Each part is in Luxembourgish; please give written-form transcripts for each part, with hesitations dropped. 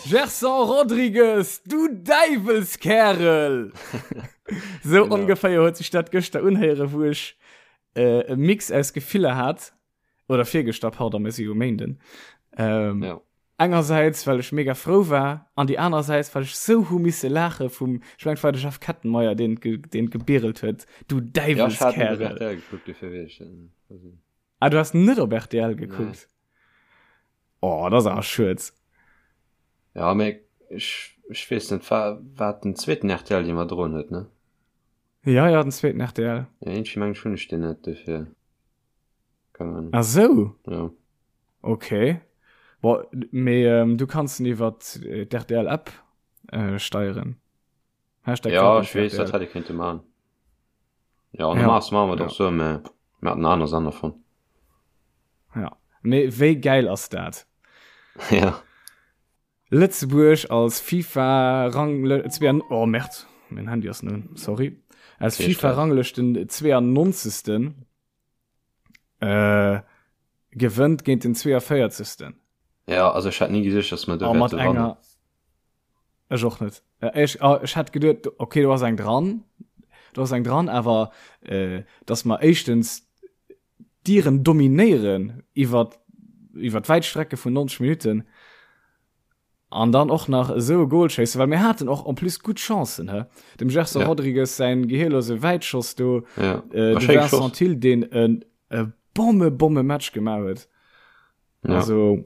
Gerson Rodrigues, du Däiwelskärel! Sou ongeféier huet sech dat gëschter unhéieren, wou ech e Mix aus Gefiller hat. Oder virgëschter, pardon, mir si jo Méinden. Ähm, ja. Engersäits, well ech mega frou war, an déi anersäits, well ech sou hu misse laache vum, ech mengen, et war de Jeff Kettenmeyer, deen, deen gebirelt huet, du Däiwelskärel. Ja, ech hat net op rtl gekuckt, dofir weess ech dat net. Ah, du has net op rtl gekuckt? Nee. Oh, dat ass awer schued. Ja, mee ech, ech weess net, war, war et den zweeten rtl, dee mer droen huet, ne? Ja, ja, den zweeten rtl. Ja, iergendwéi mengen ech, hunn ech deen net, dofir. Keine Ahnung. Ah sou? Ja. Okay. Boah, mee ähm, du kanns en iwwer d'RTL App äh, steieren. Hashtag ja, ech weess, dat hätt ee kéinte man. Ja, normal ja. machen wir doch so, mä mir hatten aner Sender von. Ja. Mee wéi geil ass dat? Ja. Lëtzebuerg als FIFA Rang oh Merd, mein Handy ass nun, sorry. Als FIFA Ranglëschten 92. Äh, gewënnt géint den 42. Ja, also ech hätt ni geduecht, dass mer do wäerte wannen. Ech och net. Äh, ech, ah, ech hätt geduet, okay, do ass eng dran, do ass eng dran, awer äh, dass mer éischtens d'Iren dominéieren iwwer iwwer wäit Strecke vun 90 Minuten An dann och nach esou e Goal schéissen, well mir haten och en plus gutt Chancen, he? Dem Gerson ja. Rodrigues säin gehirlose Wäitschoss do, ja. äh, de Vincent Thill, deen en e Bomme, Bomme Match gemaach huet. Ja. Also,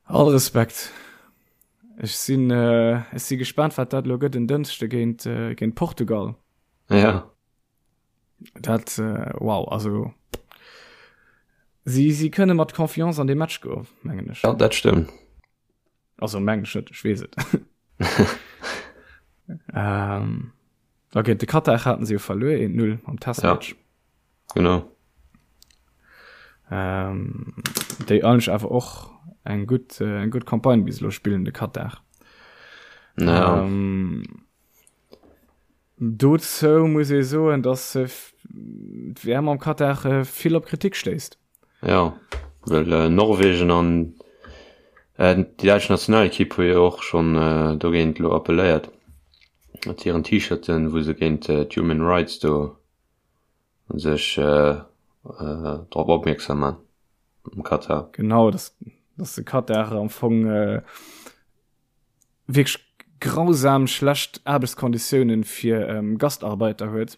all Respekt. Ech sinn, äh, ech si gespannt, wat dat lo gëtt en Dënschde géint, äh, géint Portugal. Ja. Dat äh, wow, also si si kënne mat Confiance an de Match go mengen ech. Ja, dat stëmmt. Also mengen ech net, ech weess et. ähm, da géint de Katar haten se jo verluer 1-0 am Testmatch. Ja, genau. Ähm, déi eigentlech awer och eng gutt äh, eng gutt Campagne bis elo spillen, de Katar. Ja. Ähm, Dozou muss ee soen, datt d'WM am Katar vill op Kritik stéisst. Jo, well Norwegen an déi däitsch Nationalekipp hu jo och schonn dogéint elo appelléiert mat hiren T-Shirten, wou se géint d'Human Rights do sech drop opmierksam man am Katar. Genau, datt de Katar am Fong wierklech grausam schlecht Aarbechtskonditiounen fir ähm, Gastarbeiter huet,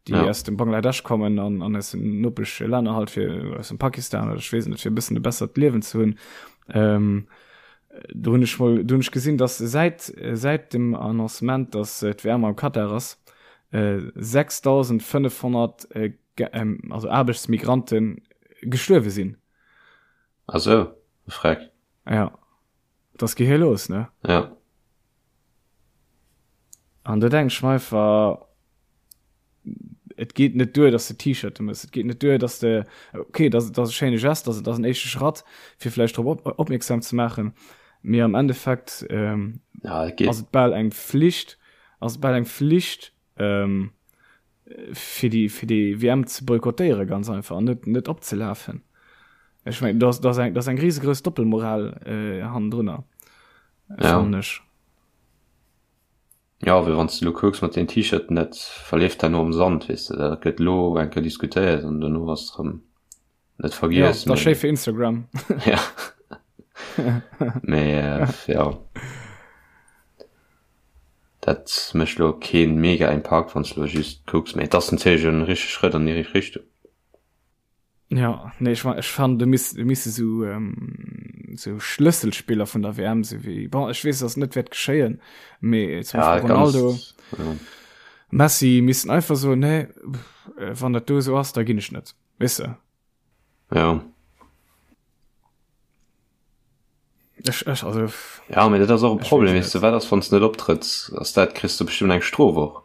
déi ja. aus dem Bangladesch kommen an, an aus den nopesch Länner halt fir aus dem Pakistan oder ech weess net fir e bëssen e bessert Liewen ze hunn. Ähm, do hunn ech mol do hunn ech gesinn, dass säit säit dem Annoncement, dass äh, d'WM am Katar ass, äh, 6500 äh, ähm, also Aarbechtsmigranten gestuerwe sinn. Ach sou, freck. Ja. Dat ass gehirlos, ne? Ja. An do denk ech mer einfach, et geet net duer, dass de T-Shirte mëss. Et geet net duer, dass de, okay, dat ass e schéine Gest, dat ass en éischte Schratt, fir vläicht drop op, opmierksam ze maachen. Mee am Endeffekt ähm, ja, et ass et bal eng Flicht, ass et bal eng Flicht, ähm, fir déi fir déi WM ze boykottéiere ganz einfach an net net opzelafen. Ech mengen dat ass eng dat ass eng risegrouss Doppelmoral äh, hannendrunner ja. fannen ech. Ja, well wann s de lo kucks mat den T-Shirten, dat verleeft herno am Sand, weess de, dat gëtt lo eng Kéier diskutéiert an dono ass et rëm net vergiess. Ja, dat ass schéi fir Instagram. Ja. Mee äh, ja. Dat mécht lo keen mega Impakt wann s lo just kucks, mee et ass natierlech en richtege Schrëtt an déi richteg Richtung. Ja, nee, ech, ech fannen do misst, misse sou ähm, sou Schlësselspiller vun der WM sou wéi bon ech weess dass net wäert geschéien, mee zum Ja, Beispill Ronaldo, ganz, ja. Messi missten einfach soen nee, wann dat do esou ass, da ginn ech net. Weess de? Ja. Ech, ech, also. Ja, mee dat ass och e Ech Problem, weess weess de, net. wat ass, wann s de net optrëtts? Ass dat, kriss de bestëmmt eng Strof och.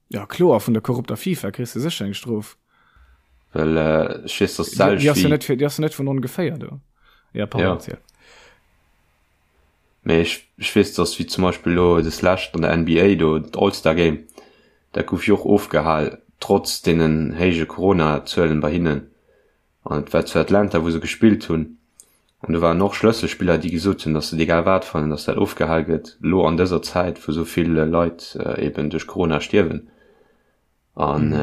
Ja, kloer, vun der korrupter FIFA kriss de sécher eng Strof. Well ech weess, dass Déi, déi d'selwecht ass jo wéi. net fir, déi ass jo net vun ongeféier do. Ja, pardon, Ja. erziel. Mee ech, ech weess, dass wéi zum Beispill elo des lescht an der NBA do, d'All-Star Game, dat gouf jo och ofgehal, trotz deenen héije Corona-Zuelen bei hinnen. An et war zu Atlanta, wou se gespillt hunn. An do waren och Schlësselspiller, déi gesot hunn, datt se et egal wat fannen, datt dat ofgehal gëtt, elo an dëser Zäit, wou esou vill Leit eben duerch Corona stierwen. An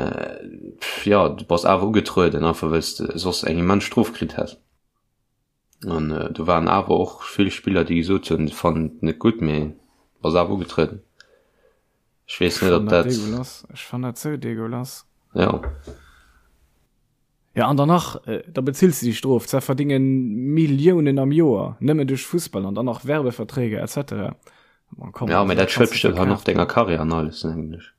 jo, du bass awer ugetrueden, einfach well s de soss eng immens Strof kritt häss. An do waren awer och vill Spiller, déi gesot hunn, se fannen et net gutt, mee bass awer ugetrueden. Ech weess net, ob dat. Ech fannen dat sou degueulass. Jo. Ja an dann nach, da bezills de déi Strof, zwar verdinge Milliounen am Joer nëmmen duerch Fussball an dann nach Werbeverträge etc. Man, komm, ja, mä dat schued bestimmt och nach denger Karriär an alles, denken ech.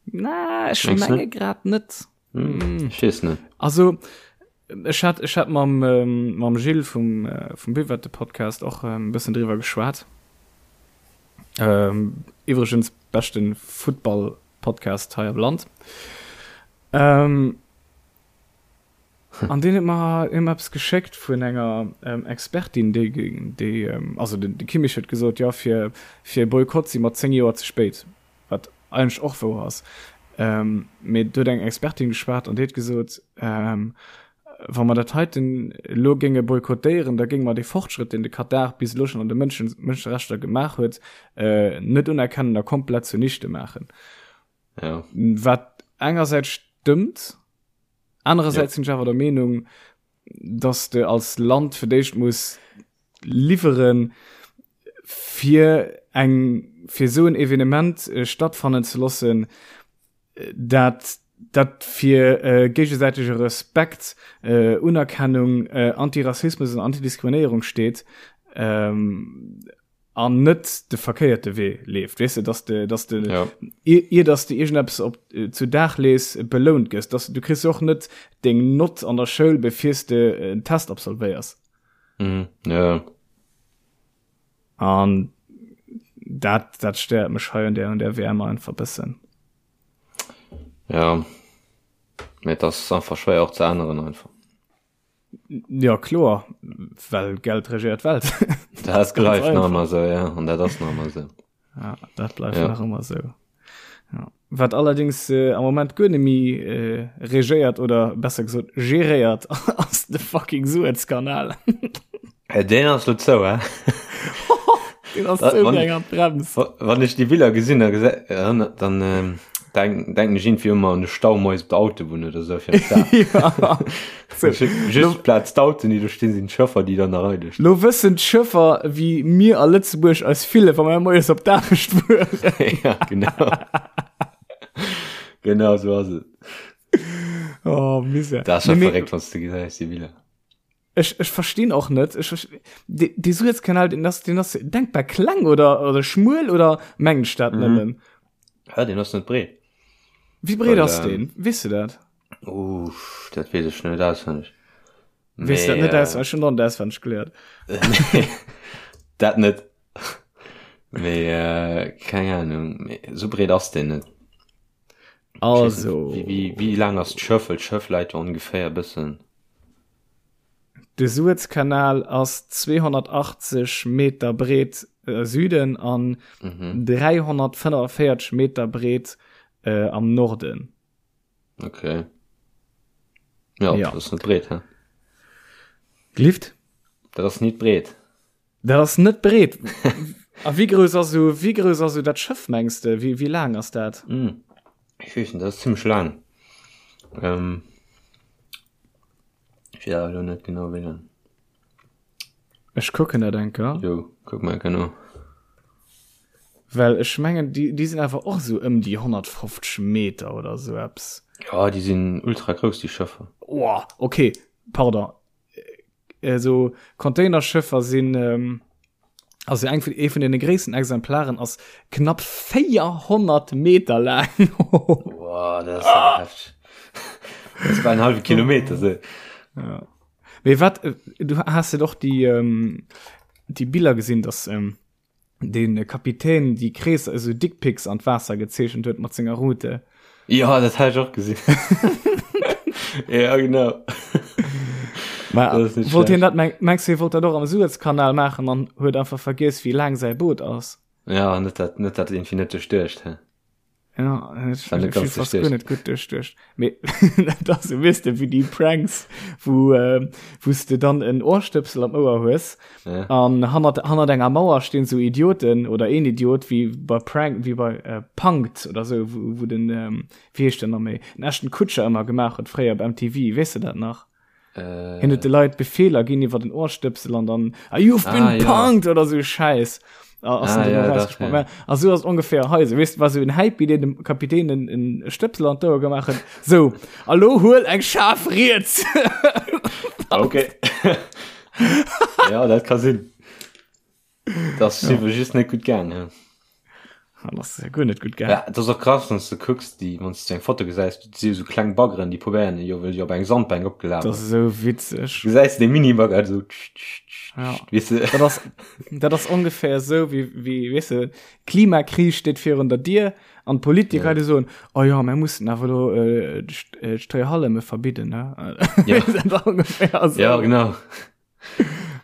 Na, ech menge grad net. Hm, ech weess net. Also ech hat, ech hat mam, ähm, mam Gilles vum, äh, vum Buvette Podcast och e ähm, bëssen driwwer geschwat. Ähm, iwwregens beschten Football Podcast hei am Land. Ähm, an deen huet mer huet mer eppes geschéckt vun enger ähm, Expertin, déi, déi ähm, also den, de Kimmich huet gesot, jo, fir, fir e Boykott si mer 10 Joer ze spéit, wat eigentlech och wouer ass. Ähm, mee do huet eng Expertin geschwat an déi huet gesot, ähm, wa mer dat heiten elo géinge boykottéieren, da géinge mer dee Fortschrëtt, deen de Katar bis elo schonn an de Mënschen, Mënscherechter gemaach huet, äh, net unerkennen a komplett zunichte maachen. Ja. Wat engersäits stëmmt, anerersäits ja. sinn ech awer der Meenung, dass de als Land fir d'éischt muss liwweren, fir eng fir esou en Evenement äh, stattfannen ze loossen, dat dat fir äh, géigesäitege Respekt, äh, Unerkennung, äh, Antirassismus an Antidiskriminéierung steet. Ähm, an net de verkéierte Wee leeft weess de dass de dass de ja. ier, ier dass de iergendeppes op äh, zu Dag lees belount gëss dass du kriss och net deng Nott an der Schoul befirs de äh, en Test absolvéiers mhm. ja. an dat dat stéiert mech hei an der an der WM einfach bëssen ja mee das einfach schwéier och ze änneren einfach Ja kloer, well Geld regéiert d'Welt. Dat bleift nach ëmmer esou, ja, an dat ass nach ëmmer esou. Ja, dat bleift ja. nach ëmmer esou. Ja. Wat allerdings äh, am Moment guer net méi äh, regéiert oder besser gesot geréiert ass de fucking Suezkanal. Äh, deen ass lo zou, hä? Deen ass zou wéi eng Handbrems. Wann ech déi Biller gesinn, da gese dann ähm, denk, denken ech irgendwie ëmmer an de Stau moies op der Autobunn oder sou fir Ja. So, Just Plaz d'Autoen, déi do stinn, sinn d'Schëffer, déi dann nach eidel stinn. Lo wëssen d'Schëffer, wéi mir a Lëtzebuerg eis fillen, wa mir moies op d'Aarbecht fueren. Ja, genau. Genau sou ass et. Oh, Misär. Dat ass scho verréckt, wann s de gesäis, déi Biller. Ech, ech verstinn och net, ech, ech, de, de Suezkanal, den ass, den ass denkbar kleng oder, oder schmuel oder mengen ech dat mhm. nëmmen? Ja, den ass net breet. Wie breet ass ähm, den? Weess du dat? Uff, dat weess ech net auswendig. Weess dat net äh, schon dann auswendig geléiert. dat net. Mee äh, keng Ahnung, mee, so breet ass den net. Also. Wéi, wéi, wéi laang ass d'Schëff? Well d'Schëff läit jo ongeféier e bëssen. De Suezkanal ass 280 Meter breet a Süden an 345 Meter breet am Norden. Okay. Ja, ja. dat ass net breet, hä? Gelift? Dat ass net breet. Dat ass net breet. A wéi grouss ass esou, wéi grouss ass esou dat Schëff, mengs de? Wéi, wéi laang ass dat? Mm. Ech weess net, dat ass zimmlech laang. Ähm, ech weess awer elo net genau, wéi laang. Ech kucken dat eng Kéier. Jo, kuck mol enker no. Well ech mengen, déi, déi sinn awer och esou ëm déi 150 Meter oder esou eppes. Ja, déi sinn ultra grouss, déi Schëffer. Oh, okay, pardon. Esou Containerschëffer sinn, also eng vun, ee vun deene gréissten Exemplaren ass knapp 400 Meter laang. Wow, dat ass awer hefteg. Dat ass bal en hallwe Kilometer, sou. Ja. Mee wat, du has jo och déi, déi Biller gesinn, dass den Kapitän déi Kreesser, esou Dickpics an d'Waasser gezeechent huet mat senger Rute. Ja, dat hat ech och gesinn. Ja, genau. Ma, wollt hien dat, mengst du, hie wollt dat och am Suezkanal maachen an huet einfach vergiess, wéi laang säi Boot ass? Ja, net dat, net dat irgendwie net duerchduecht, hä? Ja, ech ech hu fast guer net gutt duerchduecht. Mee dat ass esou, weess de, wéi déi Pranks, wou äh, wou s de dann en Ohrstëpsel am Ouer hues Ja. an hannert, hannert enger Mauer stinn sou Idioten oder een Idiot, wéi bei Prank, wéi bei äh, Punk'd oder sou, wou, wou den, ähm, wéi heescht den nach méi, den Ashton Kutcher ëmmer gemaach huet fréier op MTV, weess de dat nach? Äh, Hien huet de Leit Befeeler ginn iwwer den Ohrstëpsel an dann ah, you've been Ah, ja. punked oder sou Schäiss. Ah, ass Ah, den ja, ja, dach, rausgesprungen. ja. A sou ass ongeféier hei. So, weess, war sou en Häipi, deen dem Kapitän en, en Stëpsel an d'Ouer gemaach huet. So, a lo huel eng schaarf riets. Okay. ja, dat ka sinn. Das ja. just net gut gaang. Ja. Ah, das ist ja guer net gutt gaang. Ja, dat ass och krass, wann du kucks, déi, wann du eng Foto gesäis, du si so kleng Baggeren, déi probéieren jo wëll jo op eng Sandbänk opgelaf. Das ist so witzeg. Du gesäis de Mini-Bagger so. Tsch, tsch, tsch, Ja. Weißt du? Dat ass, dat ass ongeféier sou wéi, wéi, weess de, Klimakris steet virun der Dier an d'Politiker ja. soen, oh ja, mir mussen awer lo äh, äh, d'Stréihalleme verbidden, ne? Ja. Dat ongeféier so. Ja, genau.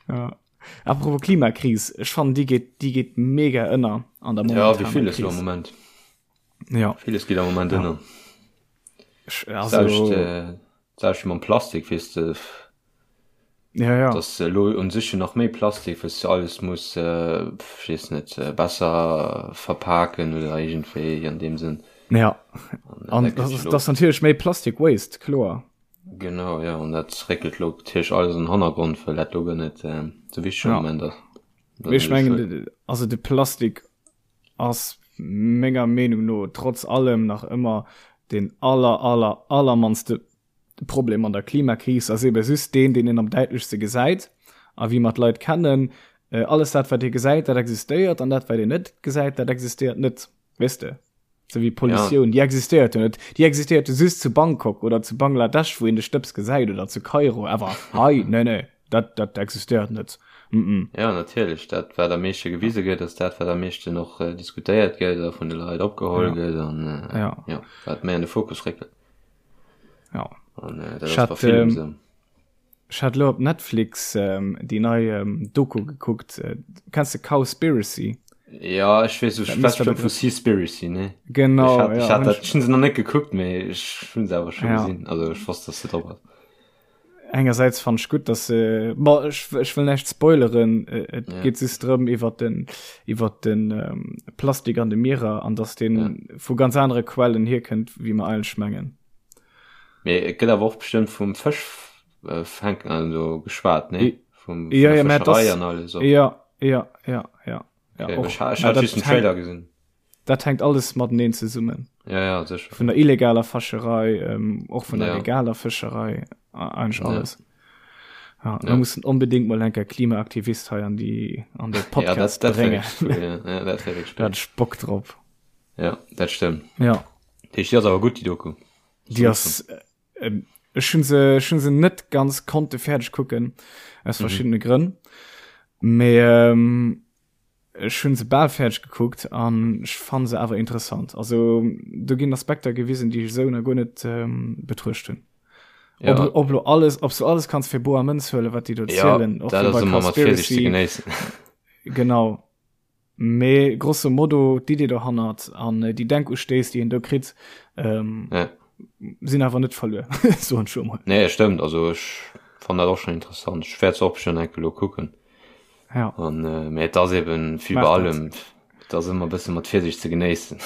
Ja. Apropos Klimakris, ech fannen déi geet, déi geet mega ënner an der Ja, wéi momentaner villes lo am Kris. Moment. Ja. Villes geet am Moment Ja. ënner. Ech, Selbst, also, äh, selbst mam Plastik, weess de, ja, ja. dass elo un sech jo nach méi Plastik, wëss du alles muss, äh, pff, ech weess net, äh, besser verpaken oder iergendwéi an deem Sënn. Ja. An, äh, An dat das gëtt jo ass, lo das ass natierlech méi Plastik Waste, kloer. Genau, jo, an dat réckelt lo natierlech alles an den Hannergrond, well dat lo guer net esou wichteg am Ja. Moment ass. Dat Mee ass ech natierlech mengen, schued. also de Plastik ass menger Meenung no trotz allem nach ëmmer deen aller, aller, allermannste Problem an der Klimakris, ass ebe just deen, deen een am däitlechste gesäit. A wéi mer d'Leit kennen, alles dat, wat ee gesäit, dat existéiert, an dat, wat een net gesäit, dat existéiert net, weess de? Sou wéi Pollutioun, ja. déi existéiert jo net. Déi existéiert jo just zu Bangkok oder zu Bangladesch, wou een de Stëbs gesäit oder zu Kairo, awer hei, nee, nee, dat, dat existéiert net. Mm -mm. Ja, natierlech, dat wat am meeschte gewise gëtt, ass dat wat am meeschten och äh, diskutéiert gëtt a vun de Leit opgeholl ja. gëtt an äh, ja. ja, wat méi an de Fokus réckelt. Ja. An äh, dat ass bei villem ähm, sou. Ech hat lo op Netflix déi nei Doku gekuckt. Kenns de Cowspiracy? Ja, ech weess, du schwätz bestimmt vu Seaspiracy, ne? Genau, Ech hat, ja. ech hat dat, ech hunn se nach net gekuckt, mee ech hunn se awer scho Ja. gesinn. Also ech wosst, dass se drop ass. Engersäits fand ech gutt, dass se, bon, ech, ech wëll näischt spoileren, et Ja. geet just drëm iwwer den, iwwer den Plastik an de Mierer an dass deen Ja. vu ganz anere Quellen hierkënnt, wéi mer eigentlech mengen. Mee et gëtt awer och bestëmmt vum Fësch äh, fänken also geschwat, ne? Vum, vun Ja, der ja, mä Fëscherei das, an alles och. ja, ja, ja, ja, ja, Okay, och. ech, ha- ech Mä hat dat just den hänkt, Trailer gesinn. dat hänkt alles mateneen zesummen. Ja, ja, sécher. Vun der illegaler Fëscherei, ähm, och vun der Ja. legaler Fëscherei, a- eigentlich Ja. alles. Ja, wir Ja. mussen unbedingt mal enker Klimaaktivist hei an die, an de Ja, Podcast dat, dat wär bréngen. wirklich cool, ja. Ja, dat wär wirklich Da cool. hat ech Bock drop. Ja, dat stëmmt. Ja. Déi ass awer gutt, déi Doku. Déi ass, äh, ech hunn se, ech hunn se net ganz konnte fäerdeg kucken, aus Mhm. verschiddene Grënn. Mee ähm, ech hunn se bal fäerdeg gekuckt an ech fann se awer interessant. Also do ginn Aspekter gewisen, déi ech esou nach guer net ähm, betruecht hunn. Ja. Ob, ob lo alles, ob du alles kanns fir boer Mënz huelen, wat déi do Ja, zielen, och dat wéi ass bei ëmmer mat Virsicht ze Cowspiracy. genéissen. Genau. Mee grosso modo d'Idee dohannert an déi Denkustéiss, déi een do kritt, ähm, Ja. sinn awer net verluer, soen ech emol. Nee, stëmmt. Also ech fann dat och schon interessant. Ech wäert se och bestimmt enke lo kucken. Ja. An äh, mee et ass eben wéi Maach bei dat. allem, et ass ëmmer e bësse mat Virsicht ze genéissen.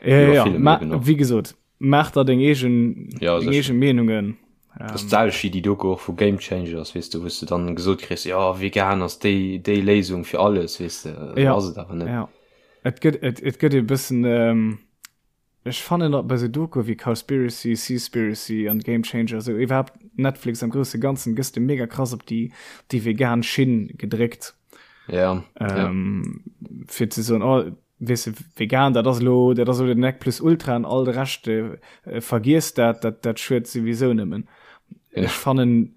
Ja, Wéi ja, bei ja. villem Ma, eben och. wéi gesot, Maach der deng eegen, Ja, deng sécher. eegen Meenungen. Das ähm, selwecht wéi déi Doku och vu Game Changers, weess de, wou s de dann gesot kriss, ja, vegan ass déi, déi Léisung fir alles, weess de, ja, ass et awer net. Ja. Et gëtt, et, et gëtt e bëssen, ähm, ech fannen dat bei sou Doku wéi Cowspiracy, Seaspiracy an Game Changer, sou iwwerhaapt Netflix am grousse Ganzen, gëss de mega krass op déi, déi vegan Schinn gedréckt. Ja, ähm, ja. Fir ze soen, oh, weess de, vegan, dat ass elo, dat ass elo den Nec plus ultra an all de Rescht, äh, vergiess dat, dat, dat schued souwisou nëmmen. Ja. Ech fannen,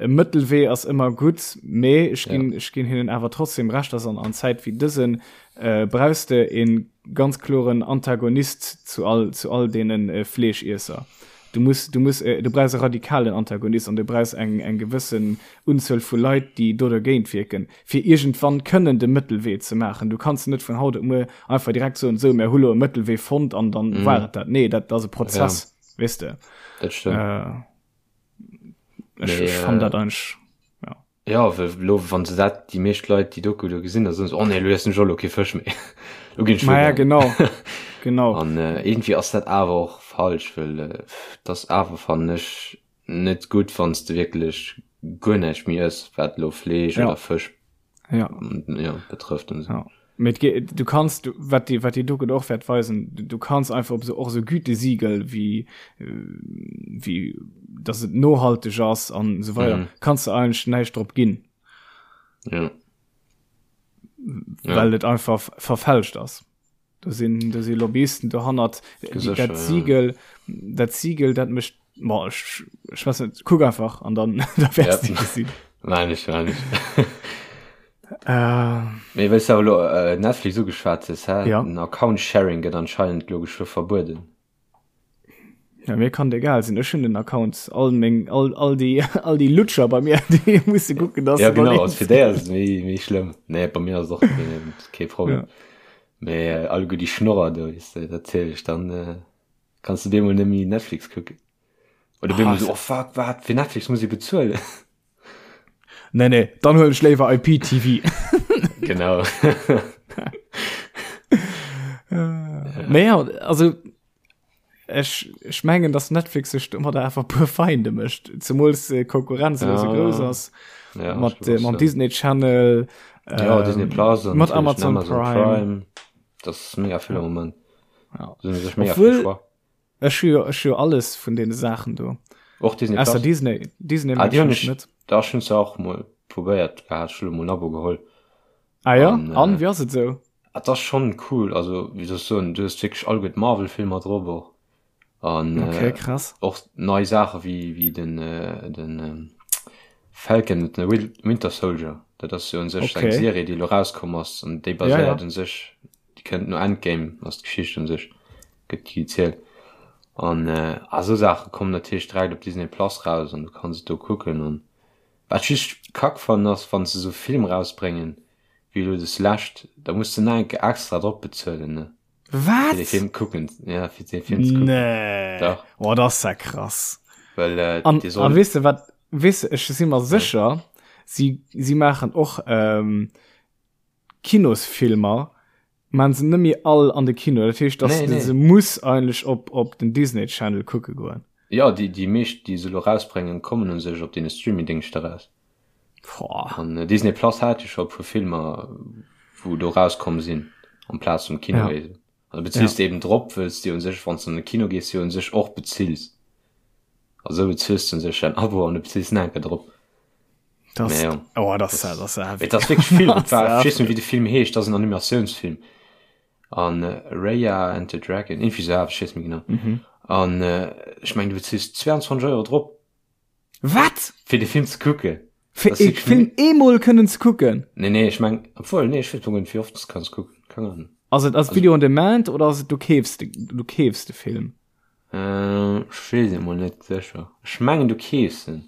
e Mëttelwee ass ëmmer gutt, mee ech ginn, Ja. ech ginn hinnen awer trotzdem Recht, dass an, an Zäit wéi dësen, äh, brauchs de e ganz kloren Antagonist zu all, zu all deenen äh, Fleeschiesser. Du muss, du muss, äh, du brauchs e radikalen Antagonist an du brauchs eng, eng gewëssen Unzuel vu Leit, déi do dergéint wierken, fir iergendwann kënnen de Mëttelwee ze maachen. Du kanns net vun haut op muer einfach direkt soen, sou, mär hu lo e Mëttelwee fonnt an dann mm. war et dat. Nee, dat ass e Prozess, ja. weess de. Dat stëmmt. Äh, ech, ech fann dat eigentlech, ja. Ja, well lo, wann se dat, déi meescht Leit déi Doku do gesinn, da soen se, oh nee, lo iessen ech och lo kee Fësch méi. Lo ginn ech Ma ja, vegan. genau. Genau. An äh, irgendwie ass dat awer och falsch, well äh, dat ass awer, fannen ech, net gutt, wann s de wierklech guer näischt méi ëss, wat lo Fleesch Ja. oder Fësch Ja. ja, betrëfft und so. Ja. Mee et ge- du kanns, du, wat déi, wat déi Doku och wäert weisen, du, du kanns einfach op so, och so Gütesiegel wéi, äh, wéi, dass et nohalteg ass an esou weider, mhm. kanns du eigentlech näischt drop ginn. Ja. Well ja. et einfach verfälscht ass. Do sinn, do si Lobbyisten dohannert. Dat Siegel, dat Siegel, dat mécht, boah, ech, ech weiß net, kuck einfach an dann da wäerts du gesinn. Nein, ech war nicht. Äh, Mee wëlls du awer lo äh, Netflix ugeschwat hues, hä? Ja. Den Account Sharing gëtt anscheinend lo geschwë verbueden. Ja, mir kann egal sinn. Ech hunn den Account all meng all, all déi all déi Lutscher bei mir, déi musse kucken, dass Ja genau, also fir déi ass et méi méi schlëmm. Nee, bei mir ass et och keen kee Problem. Ja. Mee äh, alleguer déi Schnorrer do, weess de, dat ziel ech dann äh, kanns du bemol net méi Netflix kucken. Oder bemol Ah, so, oh fuck, wat, fir Netflix muss ich bezuelen. Nee, nee, dann huelen ech léiwer IPTV. Genau. Mee ja, also ech, ech mengen, dass Netflix sech domadder einfach puer Feinde mécht, zemools äh, Konkurrenz elo sou Ja. grouss ass Ja, mat ich äh, mam Disney Channel, Ja, ähm, Disney Plus mat Amazon, Amazon Prime. Prime. Das ist mega vill am Moment. Ja. Da sind sech mega Obwohl- vill Choix. Ech hu jo, ech hu jo alles vun deene Saachen do. Och Disney Plus? Ausser Disney. Disney ah, mag déi hunn ech ech net. Da hunn se och mol probéiert gehat, ech hunn elo mol en Abo geholl. Ah ja? An, äh, An, wéi ass et sou? Et ass schonn cool, also wéi soll ech soen, du hues wierklech all gutt Marvel-Filmer drop och. An Okay, äh, krass. och nei Saache wéi, wéi den, äh, den ähm, Falcon and the Winter Soldier. Dat ass jo un sech eng Okay. Serie, déi elo rauskomm ass an déi Ja, ja. baséiert un sech Déi kënnt no Endgame, ass d'Geschicht un sech, gëtt déi gezielt. An a sou Saache kommen natierlech direkt op Disney Plus raus an du kanns et do kucken. An wat ech just kack fannen ass, wann se sou Film rausbréngen, wéi elo des lescht, da muss de nach eng Kéier extra drop bezuelen, ne? Wat? Fir dee Film kucken, ja, fir dee Film ze kucken. Nee. Dach. Oh, dat ass ja krass. Well, äh, An, dee an soll. weess de wat, weess de, ech si mer sécher, si, si maachen och, ähm, Kinosfilmer maan se nemmi all an de Kino, dat heescht dass Nee, de nee. se muss eigentlech op op den Disney Channel kucke goen. Jo, déi, déi meescht, déi se elo rausbréngen, kommen u sech op deene Streamingdéngschter raus. Boah. An Disney Plus hat jo scho e puer Filmer, wou do rauskomm sinn, amplaz vum Kino Ja. eben. An da bezills Ja. de eben drop, wëlls de u sech, wann s de an de Kino gees, jo u sech och bezills. Also bezills de u sech däin Abo an du bezills nach eng Kéier drop. Das, Mee jo. oh, das, das, das, das, Et ass wierklech vill. Das Et war, ech weess net, heftig. wéi de Film heescht, dat ass en Animatiounsfilm. An äh, Raya and the Dragon, irgendwie sou, ech weess net méi genau. Mhm. An äh, ech meng, du bezills 22 Euro drop, Wat? fir de Film ze kucken. Fir Das e wirklich Film eemol kënnen ze kucken? Nee, nee, ech meng, obwohl, nee, ech weess net, wéi oft du kanns kucken. Keng Ahnung. Ass et ass Video on Demand oder ass et du keefs de, du keefs de Film? Äh, ech weess et mol net sécher. Ech mengen, du keefs en.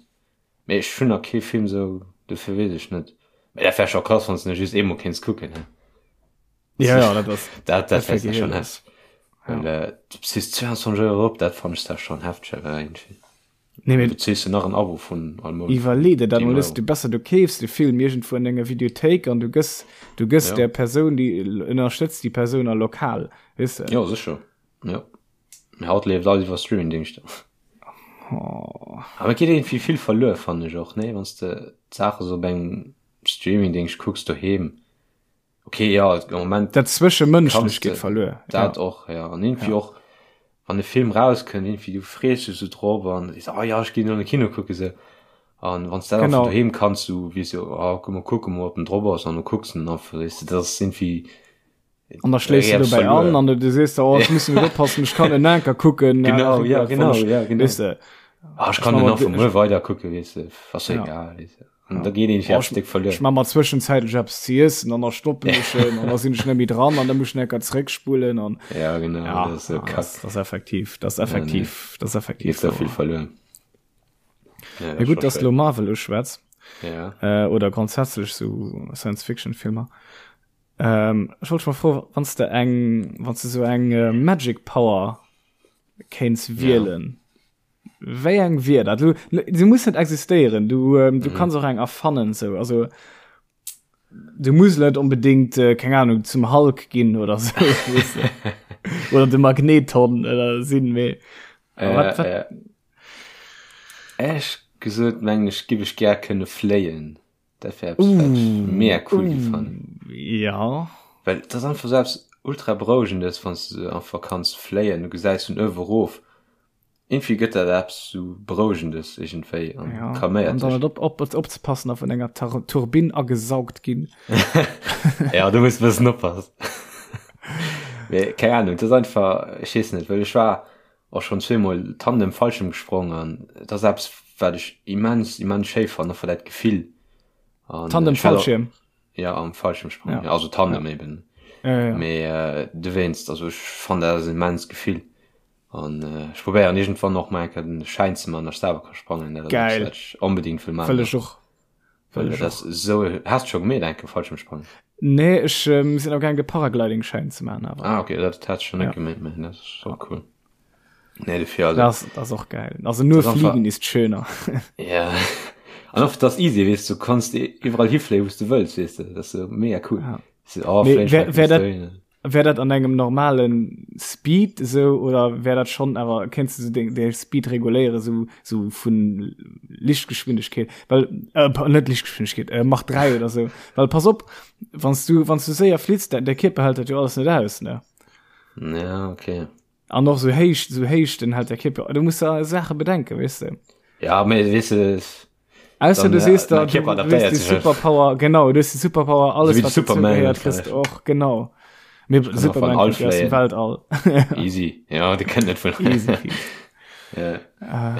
Mee ech hunn nach kee Film sou, dofir weess ech net. Mee dat wär scho krass, wann s de en just eemol kéints kucken, he? Ja, ja, dat ass, Dat, dat dat wär wär schon gehiel. hefteg. Ja. Well, äh, du bezils 22 Euro op, dat fannen ech da schon hefteg, awer irgendwie. Nee, mee Du bezils jo nach en Abo vun all Mount. Iwwerlee der dat 10 mol, Euro. du besser du keefs de Film iergendwou an denger Videothéik an du gëss, du gëss Ja. der Persoun, déi ënnerstëtz déi Persoun a lokal, weess de? Jo, sécher. Jo. Mee haut leeft alles iwwer Streamingdingschter. Oh. Awer et geet iergendwéi vill verluer, fannen ech och, nee? Wann s de d'Saache sou op engem Streamingdingscht kucks doheem. Okay, jo, am Moment Dat Zwëschemënschlecht kanns geet de verluer, dat ja. och, ja. An iergendwéi Ja. och, wann e Film rauskënnt, iergendwéi du frees dech sou drop an sees, oh ja, ech ginn an de Kino kucke sou. An wann s dat einfach Genau. doheem kanns, du weess jo, oh, komm, kucke mol, ob en drop ass, an du kucks en einfach, weess de, dat ass iergendwéi, An da schléiss du dobäi an an du sees der, oh, ech muss net oppassen, ech kann en Anker kucken. Genau, ja, genau, ja, genau. Weess de. Ah, ech kann den nach vu muer weider kucken, weess de, ass jo egal, weess de. An da geet een fir Stéck verluer. Ech ma mer zwëschenzäitlech eppes ze iessen an da stoppen ech en an da sinn ech net méi dran an da muss ech enker zréckspulen an Ja genau ja, dat ass sou kack. Dat ass effektiv, dat ass effektiv, dat ass effektiv. Geet sou vill verluer. Ja, ja gutt, dass du lo Marvel uschwätz. Ja. Äh, oder grundsätzlech sou Science-Fiction-Filmer. Ähm, ech wollt mol froen, wann s de eng, wann s de sou eng äh, Magic Power kéints wielen. Ja. Wéi eng wier dat? Du, se muss net existéieren. Du, ähm, du mhm. kanns och eng erfannen sou. Also du muss net unbedingt äh, keng Ahnung zum Hulk ginn oder so. weißt du? oder de Magneton oder sinn méi. Äh, wat, wat? Äh, Ech gesot mengen ech giff ech gär kënne fléien. Dat wär eppes, wat ech mega cool giff fannen. Ja. Well et ass einfach sou eppes ultra berouegendes, wann s de einfach kanns fléien, du gesäis vun uewe erof. Iergendwéi gëtt dat eppes sou berouegendes iergendwéi an Ja. calméiert An dann dech. net op, op, opzepassen a vun enger Tar Turbinn agesaugt ginn. Ja, do muss de bëssen oppassen. Mee keng Ahnung, et ass einfach, ech weess net, well ech war och schonn zweemol Tandem Fallschirm gesprong an et ass eppes wat ech immens immens schéi fannen, einfach dat Gefill an Tandem ech hat och Fallschirm? ja am Fallschirmsprung ja. also Tandem ja. eben ja, ja. mee äh, dowéinst also ech fannen dat ass immens Gefill an äh, ech probéieren iergendwann och mol eng Kéier den Schäin ze man, datt ech selwer ka sprangen, dat ass eppes Geil. wat ech onbedingt wëll man Wëll ech och. Well dat ass esou has de scho gemeet eng Kéier Fallschirmsprangen? Nee, ech ähm, sinn am gaang de Paragliding-Schäin ze maachen awer. Ah okay, dat hat ech schon net Ja. gemeet, mee dat ass och cool. Nee, dofir also. Das, das ist och geil. Also nur Das ist einfach- fliegen ist schöner. Ja. An oft das easy, weess du, kannst iwwerall hifléien, wou s du wëlls, weess du. Dat ass so mega cool. Ja. So, oh, Mee fléien, wär- fléien, wär dat- fléien. Wär dat an engem normalen Speed esou oder wär dat schon awer kéints du sou deng däi Speed reguléieren sou sou vun Lichtgeschwindegkeet well äh, net Lichtgeschwindegkeet äh, Mach 3 oder sou well pass op wanns du wanns du séier flitts däi däi Kierper hält dat jo alles net aus ne Ja, okay. an och sou héich sou Héichten hält däi Kierper du muss da Saache bedenken weess de. Ja, mee weess de Ausser du Dann, sees äh, da mein du, Kierper du adaptéiert hues die sech. Superpower genau du hues die Superpower alles So wie wat Superman dazugehört kriegst du och genau mir kann Superman auch von kommt ja aus dem All Weltall Easy. Ja, de kënnt net vun. Easy peasy. Ja. Äh,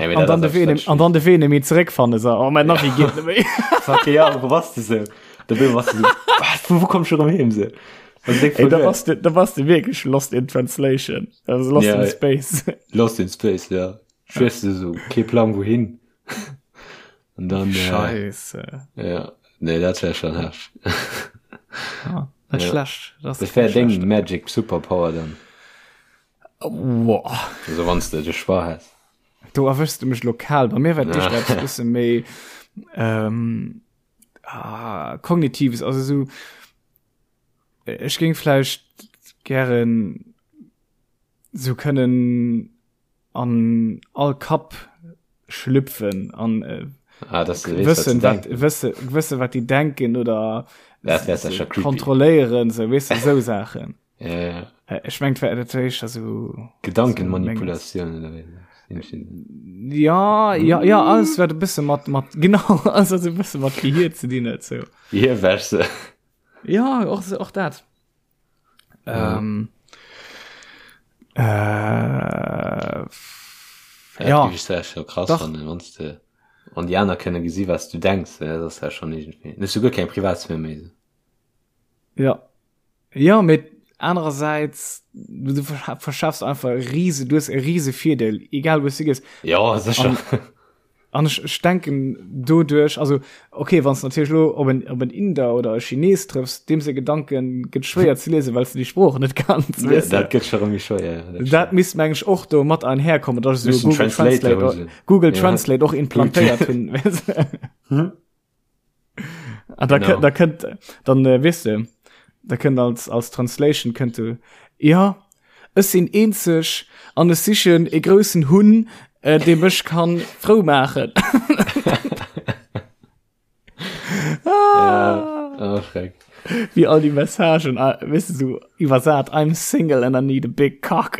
Ja, mee an dat dann de ass Wee eppes, an dann de Wee méi zeréckfanne so oh mein Navi geet net méi Fuck, ja, wo warst du so? Da bin warst du so, was, wo, wo kommst du rum hin? So? Also, denk Ey, da verloren. warst du da warst du wirklich lost in translation also lost Ja. in space Lost in Space, ja. Schwörst du so, kein Plan wohin. Und dann, äh, Scheiße ja, nee, dat wär schon heftig. ja, net Ja. schlecht das Das wär deng Magic Superpower dann. Boah. Also wann du de Choix häss. Do erwëschst du mech lokal. Bei mir war Ja. d'éischt eppes bësse méi ähm, ah, kognitives, also so ech géing vläicht gären sou kënnen an all Kapp schlüpfen an äh, Ah, dass du weess, wat wëssen se wat denken. wësse wësse wat déi denken oder Dat wär sicher creepy. kontrolléieren, sou weess du sou Saachen. Ja, ja. Äh, Ech mengt wär dat éischter sou Gedankenmanipulation oder wéi. Ja, ja, ja, alles wat e bësse mat mat genau alles wat e bësse mat Gehier ze dinn huet sou. Gehirwäsche. Ja, och och dat. Ähm, äh, Ja, ja, dat géif ech scho krass Dach. fannen, wann s de an déi aner kënne gesi wat s du denks, dat ass ja schon iergendwéi. Dann hues du guer keng Privatsphär méi. sou. ja. Ja, mee anerersäits du, du verscha- verschaffs einfach e riese, du hues e riese Virdeel, egal wou s du gees. Ja, sécher. An ech, ech denken doduerch, also okay, wann s du natierlech lo op en, op en Inder oder e Chines trëffs, deem seng Gedanken gëtt schwéier ze liesen, well s du déi Sprooch net kanns, Ja, weess de. dat gëtt scho rëm méi schwéier, ja, dat Dat misst meng ech och do mat einherkommen, dass ech Müssen esou Google Translator Translate, hu se. Google Ja. Translate och implantéiert hunn, weess de. Hm? Ah, da, Genau. da kënnt dann äh, weess de, da kënnt als als Translation kënnt du ja ech sinn eenzeg an ech sichen e groussen Hunn äh, dee mech kann frou maachen. Ja, oh, schreck. Wie all die Messagen ah, weißt du, so iwwersat I'm single and I need a big cock.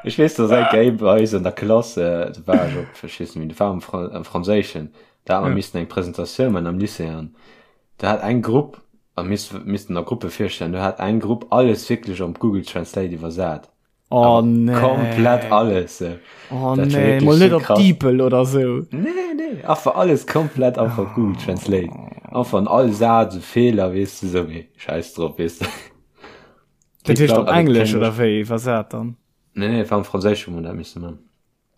Ech weess, dass eng Kéier bei eis an der Klass, äh, do war ech op, ech weess net méi, do war am Fran am Franséischen, da hat mer Ja. missen eng Presentatioun man am Lycée an da hat eng Grupp, a miss missten a Gruppe virstellen, do hat eng Grupp alles wierklech op Google Translate iwwersat. Oh Awer nee. Komplett alles. äh. Oh Dat war nee, wierklech mol net sou op krass. DeepL oder sou. Nee, nee. Nee, einfach alles komplett einfach Google Translate. Einfach an all Saz e Feeler, weess de, sou mee scheiß drop, weess de. Dat heescht op Englesch oder wéi iwwersat dann? Nee, nee, war am Franséisch hu mer dat misse man.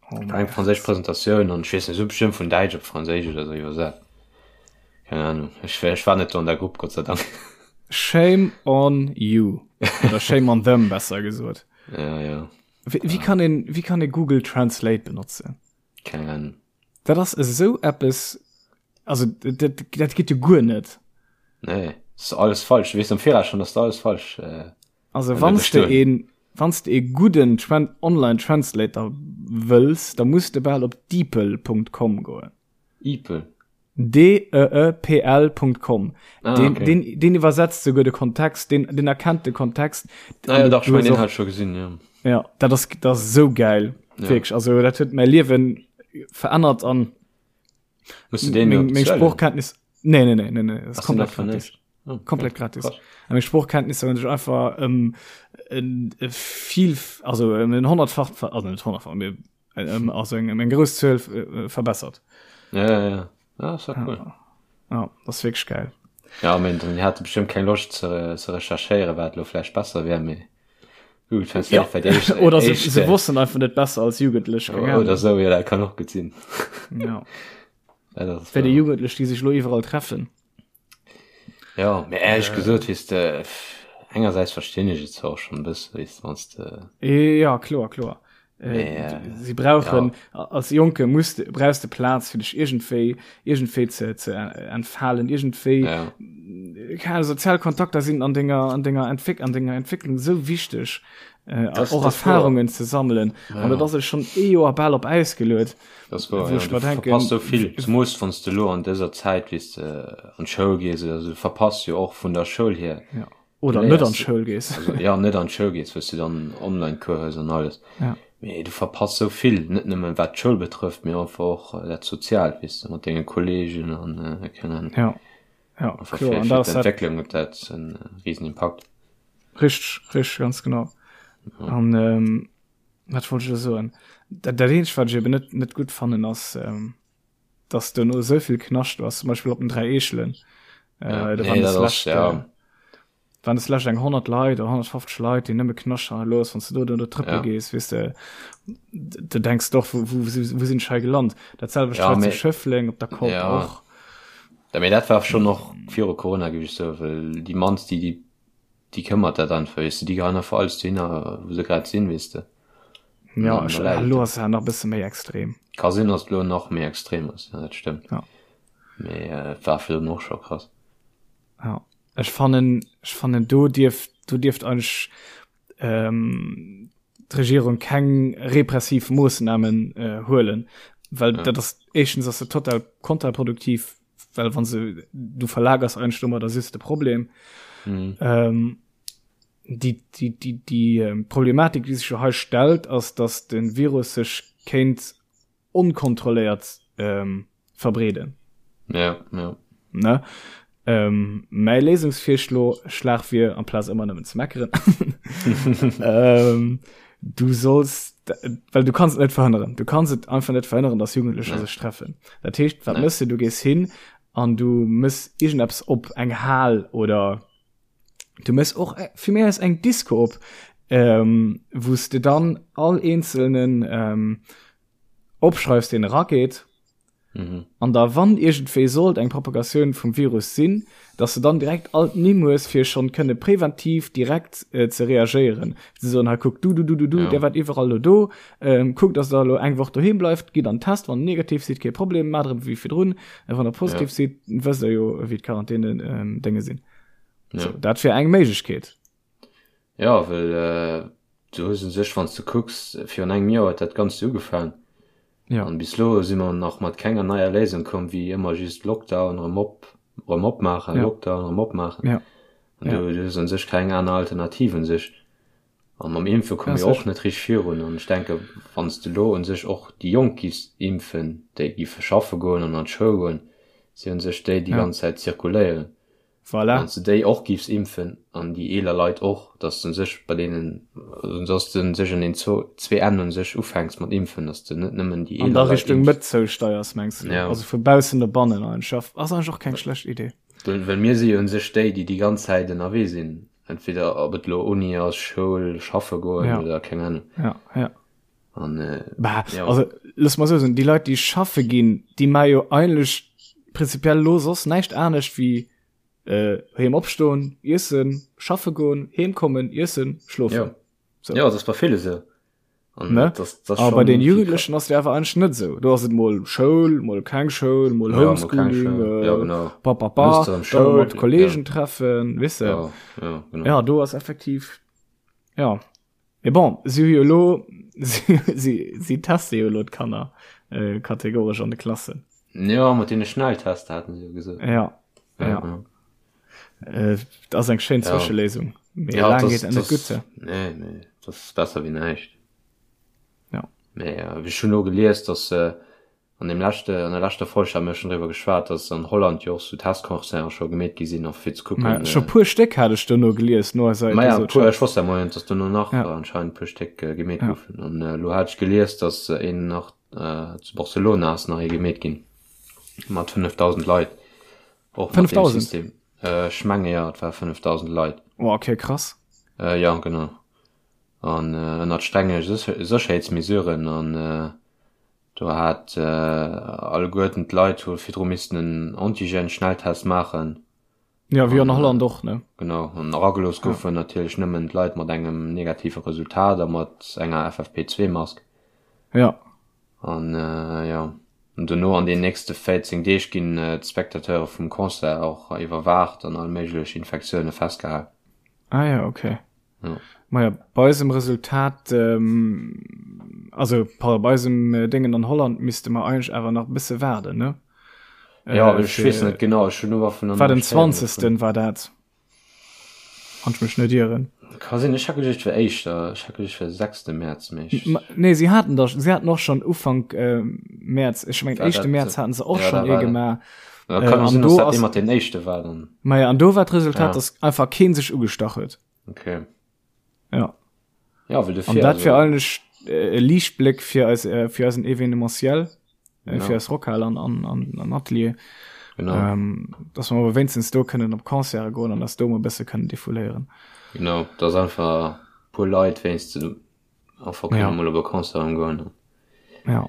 Oh War eng franséisch Presentatioun an ech weess net, se hu bestimmt vun Däitsch op Franséisch oder sou iwwersat. Keng Ahnung, ech, ech war net do an der Grupp, Gott sei Dank. Shame on you. Oder shame on them, besser gesot. Ja, ja. Wéi, wéi kann een, wéi kann ee Google Translate benotzen? Keng Ahnung. Dat ass esou eppes, also dat, dat geet jo guer net. Nee, ass alles falsch. Du weess am Viraus schon, dass du alles falsch. Äh, also wann du een, wann du ee gudden Tran Online Translator wëlls, da muss de bal op deepl.com goen. Deepl? D-E-E-P-L.com. Ah, den, okay. den, den iwwersetzt souguer de Kontext, den, den erkennt de Kontext. Ah, ja, dach, ich mein, den hat schon gesinn, ja. Ja, dat ass, dat ass so geil. Ja. Wirklich. Also, dat huet mein Liewen verännert an Musst du den meng, meng Sproochkenntnis. Nee, nee, nee, nee, nee. Das ist komplett gratis. Oh, komplett gratis. Krass. Meng Sproochkenntnisser hunn sech einfach ähm, en, e viel, also en honnertfach, also net honnertfach, mee ähm, also eng, eng grouss Zuel äh, verbessert. Ja, ja, ja. Ja, das war cool. Ja, ja das ist wirklich geil. Ja, mein, dann hatte bestimmt keng Loscht ze, ze recherchéieren, wat lo vläicht besser wär, mee Google Translate ja. war déi éischt, Oder se, éischt, se wossten einfach net besser als Jugendlech. Oder Ahnung. so, ja, dat kann och gutt sinn. Ja. Ja, dat ass Wéi déi wahr. Jugendlech, déi sech lo iwwerall treffen. Ja, mee éierlech gesot, weess de, engersäits verstinn ech et zwar och schonn e bësse, weess de, wann s de. Ja, kloer, kloer. Mee, äh, Si brauchen, ja. als Jonke muss de, brauchs de Plaz, fir dech iergendwéi, iergendwéi ze, ze entfalen, iergendwéi, Ja. keine Ahnung, sozial Kontakter sinn an denger, an denger Entwéck, an denger Entwécklung esou wichteg, äh, Das, och das war. Erfahrungen ze sammelen. An dat Ja. ass elo schonn ee Joer bal op Äis geluet. Das war, Wou ja, ech du mer denken, verpasst so vill, zumols wann s de lo an dëser Zäit, weess de, an d'Schoul gees oder sou, du verpasst jo och vun der Schoul hier. Ja. Du Oder net an léiers, d'Schoul gees. also ja, net an d'Schoul gees, wou s du dann Online-Cours hues an alles. Ja. Mee du verpasst sou vill, net nëmmen wat d'Schoul betrëfft, mee einfach och dat Soziaalt, weess de, mat denge Kollegen an keng Ahnung. Ja. Ja, Einfach kloer. fir, An fir dat ass dat. d'Entwécklung huet dat en risen Impakt. Richteg, richteg, ganz genau. Ja. An ähm, wat wollt ech elo soen? Dat, dat eenzegt, wat ech eben net, net gutt fannen, ass, ähm, dass duerno esou vill Knascht ass, zum Beispill op den 3 Eechelen. Äh, Ja, da nee, waren dat des ass, lescht, ja. äh, waren des lescht eng 100 Leit oder 150 Leit, déi nëmme Knascht hannerlooss. Wann s du do do trëppele Ja. gees, weess de, du denks doch, wou, wou, wou sinn ech hei gelant? Dat selwecht Ja, hei zu mee, Schëffleng op der Kopp ja. och. Ja, mee dat war schonn och viru Corona, géif ech soen, well déi mannst, déi, déi Déi këmmert dat einfach, weess de, déi geheien einfach alles dohinner, wou se grad sinn, weess de. An Ja, dann ech, da läit et elo do. ass et nach e bësse méi extrem. Ka sinn, dass et elo nach méi extrem ass, ja, dat stëmmt. Ja. Mee et war virdrun och scho krass. Ja, ech fannen, ech fannen do dierft, do dierft eigentlech ähm, d'Regierung keng repressiv Moossnamen äh, huelen, well Ja. dat ass éischtens ass et total kontraproduktiv, well wann se du verlagers eigentlech domadder just de Problem. Mhm. Ähm, die, die, die, die ähm, Problematik, die sich jo hei stellt, ass, dass den Virus sech kéint onkontrolléiert ähm, verbreeden. Ja, ja. Ne? Ähm, mäi Léisungsvirschlo Schlag wier, amplaz ëmmer nëmmen ze meckeren, ähm, du solls, well du kanns et net verhënneren, du kanns et einfach net verhënneren, dass Jugendlecher Nee. sech treffen. Dat heescht, wat Nee. mëss du? Du gees hin an du mëss iergendeppes op, eng Hal oder du mëss och fir mir aus eng Disco op, ähm, wou s de dann all eenzelnen ähm, opschreifs, deen erageet. Mhm. An da wann iergendwéi sollt eng Propagatioun vum Virus sinn, dass de dann direkt all d'Nimm hues, fir schonn kënne präventiv direkt äh, ze reagéieren. Ze soen, hei kuck, du, du, du, du, du, Ja. där waart iwwerall lo do, ähm, kuckt, dass der elo eng Woch doheem bleift, gitt an den Test, wann der negativ sidd, kee Problem, maacht erëm wéi virdrun, a wann der positiv Ja. sidd, wësst der jo, wéi d'Quarantäne ähm, Dénge sinn. Ja. So, dat wär eng Méiglechkeet. Ja, well äh, du hues u sech, wann s du kucks, virun engem Joer huet dat Ganzt ugefaangen. Ja. An bis elo si mer nach mat kenger neier Léisung komm, wéi ëmmer just Lockdown, erëm op, erëm opmaachen, Ja. Lockdown, erëm opmaachen. Ja. An Ja. du, du hues un sech keng aner Alternativ un sech. An mam Impfe komme Ja, mir och sech. net richteg virun. An ech denke, wann s de elo un sech och déi Jonk giffs impfen, déi giffe schaffe goen an an d'Schoul goen, si un sech déi, déi Ja. ganz Zäit zirkuléieren. Voilà. Wann s de déi och giffs impfen an déi eeler Leit och, dass de sech bei deenen, dass de sech un den zwee Enn un sech ufänks mat impfen, dass de net nëmmen déi eeler Leit impfs. An da Richtung Mëtt zousteiers, mengs de? Ja. Also vu baussen no bannen eigentlech. Ass eigentlech och keng schlecht Idee. Well mir si jo un sech déi, déi déi ganz Zäit ënnerwee sinn, entweder ob et elo Uni ass, Schoul, schaffe goen ja. oder keng Ahnung. Ja, ja. An, äh, bah, ja. Also, looss mal sou soen, déi Leit, déi schaffe ginn, déi maache jo eigentlech prinzipiell lo soss näischt anescht wéi äh, heem opstoen, iessen, schaffe goen, heem kommen, iessen, schlofen. Ja. So. Ja, dat ass bei ville sou. An Ne? das, das Aber bei den Jugendlechen ass et awer eigentlech net sou. Do ass et mol Schoul, mol keng Schoul, mol Ja, mol keng Homeschooling, Schoul. äh, Ja, genau. pa, pa, pa, Muss dann dann Schoul, mat Kollegen treffen, weess de. Ja, ja, genau. Ja, do ass effektiv, ja. Mee bon, si hu jo elo, si, si, si teste jo elo d'Kanner äh, kategoresch an de Klassen. Ja, mat deene Schnelltester haten se jo gesot. Ja, ja. ja. Äh, dat ass eng schéin Ja. Zwëscheléisung. Mee Ja, laang das, geet dat net das, gutt. nee, nee, das ist besser wéi näischt. Ja. Mee äh, ech hunn elo gelies, dass äh, an dem leschte, an der leschter Folg hate mir schonn driwwer geschwat, dass an Holland jo och sou Testconcerten scho gemeet gi sinn, och fir ze kucken. Mä scho puer Stéck hat ech dono gelies no eiser Ma ja, Episode. puer, ech wosst ja mol net, dass dono nach Ja. anscheinend puer Stéck äh, gemeet Ja. goufen. An äh, elo hat ech gelies, dass äh, een nach äh, zu Barcelona ass nach ee gemeet ginn mat 5.000 Leit. Och mat deem 5.000? System. Äh, ech menge ja, et war 5.000 Leit. Oh, okay, krass. Äh, ja, genau. An äh, ënnert strenge Sécherheetsmesuren an äh, do hat äh, alleguerten d'Leit hu virdru missten en Antigen-Schnelltest maachen. Ja, wéi an Holland och, ne? Genau, an eragelooss goufen natierlech nëmmen d'Leit mat engem negative Resultat a mat enger FFP2-Mask. Ja. An jo, an dono an den nächste 14 Deeg ginn d'Spectateure vum Concert och iwwerwaacht an all méiglech Infektioune festgehal. Ah ja, okay. Ja. Maja, bei eisem Resultat, ähm, also pardon, bei eisem äh, Déngen an Holland misste mer eigentlech awer nach e bësse waarden, ne? Ja, Äh, ech weess fir, net genau, ech hunn nur vun war den 20. war dat, wann ech mech net ieren. Ka sinn, ech hat geduecht, et wär éischter, ech hat geduecht, et wär 6. Mäerz, mee ech. Ma, nee, si haten da, si haten och schon Ufank äh, Mäerz, ech mengen War éischte dat, Mäerz haten se och ja, schon da ee war dat. gemaach. Ja, Äh, kann och an sinn, dass do dat ass, dee mat den éischte war dann. maja, an do war d'Resultat, Ja. dass einfach keen sech ugestach huet. Okay. Ja. Ja, well dofir, An dat wär also, eigentlech äh, e Liichtbléck fir eis, äh, fir eisen Evenementiel, äh, genau, fir eis Rockhal an, an, an, an Atelier, genau, ähm, dass mer awer wéinstens do kënnen op Concerte goen an dass do mol e bësse kënnen defouléieren. genau, dass einfach puer Leit wéinstens einfach kënne Ja. mol op e Concert goen. Ja.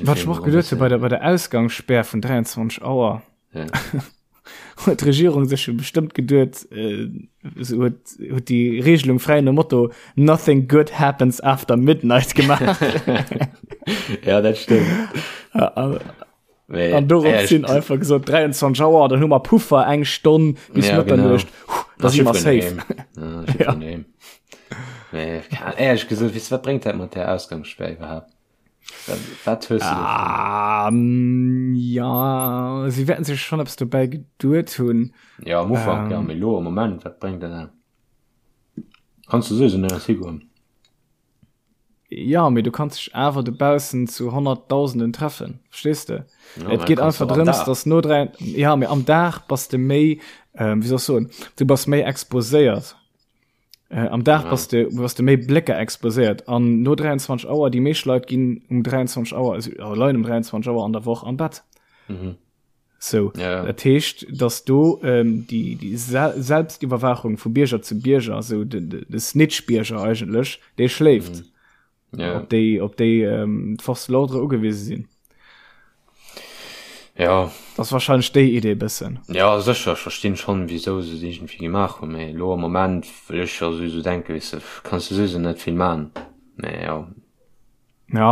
Wat ech mer och geduet hu bei der, bei der Ausgangsspär vun 23 Auer, Ja. huet d'Regierung sech jo bestëmmt geduet, äh, se huet, huet déi Regelung fräi nom Motto Nothing good happens after midnight gemaach. ja, dat stëmmt. An Mee, an dorop ja, sinn einfach gesot 23 Auer, dann hu mer Puffer eng Stonn bis Ja, genau. Mëtternuecht, da si mer safe. Ja, ja. Mee, éierlech gesot, weess du, wat bréngt dat mat där Ausgangsspär iwwerhaapt? Wat hues du ah, mm, ja sie werden sich schon etwas dabei geduet hunn ja am Ufank ähm, ja mee lo am Moment wat bréngt dat kannst du sowieso net higoen ja mee du kannst dich awer dobaussen zu honnerttausenden treffen verstehst du ja, et geht einfach drëms dass no drei ja mee am Dag bass de méi ähm, wie soll ich soen du bass méi exposéiert Äh, am Dag bass de, bass de méi Blécker exposéiert an no 23 Auer, déi meescht Leit ginn um 23 Auer, also äh, leien um 23 Auer an der Woch am Bett. Mhm. So, Ja, ja. dat heescht, dass do ähm, déi, déi Se Selbstiwwerwaachung vu Bierger zu Bierger, also de, de, de Snitch-Bierger eigentlech, dee schléift. Mhm. Ja. Op déi, op déi ähm, d'Force de l'ordre ugewise sinn. Ja. Das ass wahrscheinlech déi Idee bëssen. Ja, sécher, ech verstinn schonn, wisou se et iergendwéi gemaach hunn, mee elo am Moment wëll ech jo souwisou denken, weess de, kanns de souwisou net vill man, mee jo. Ja.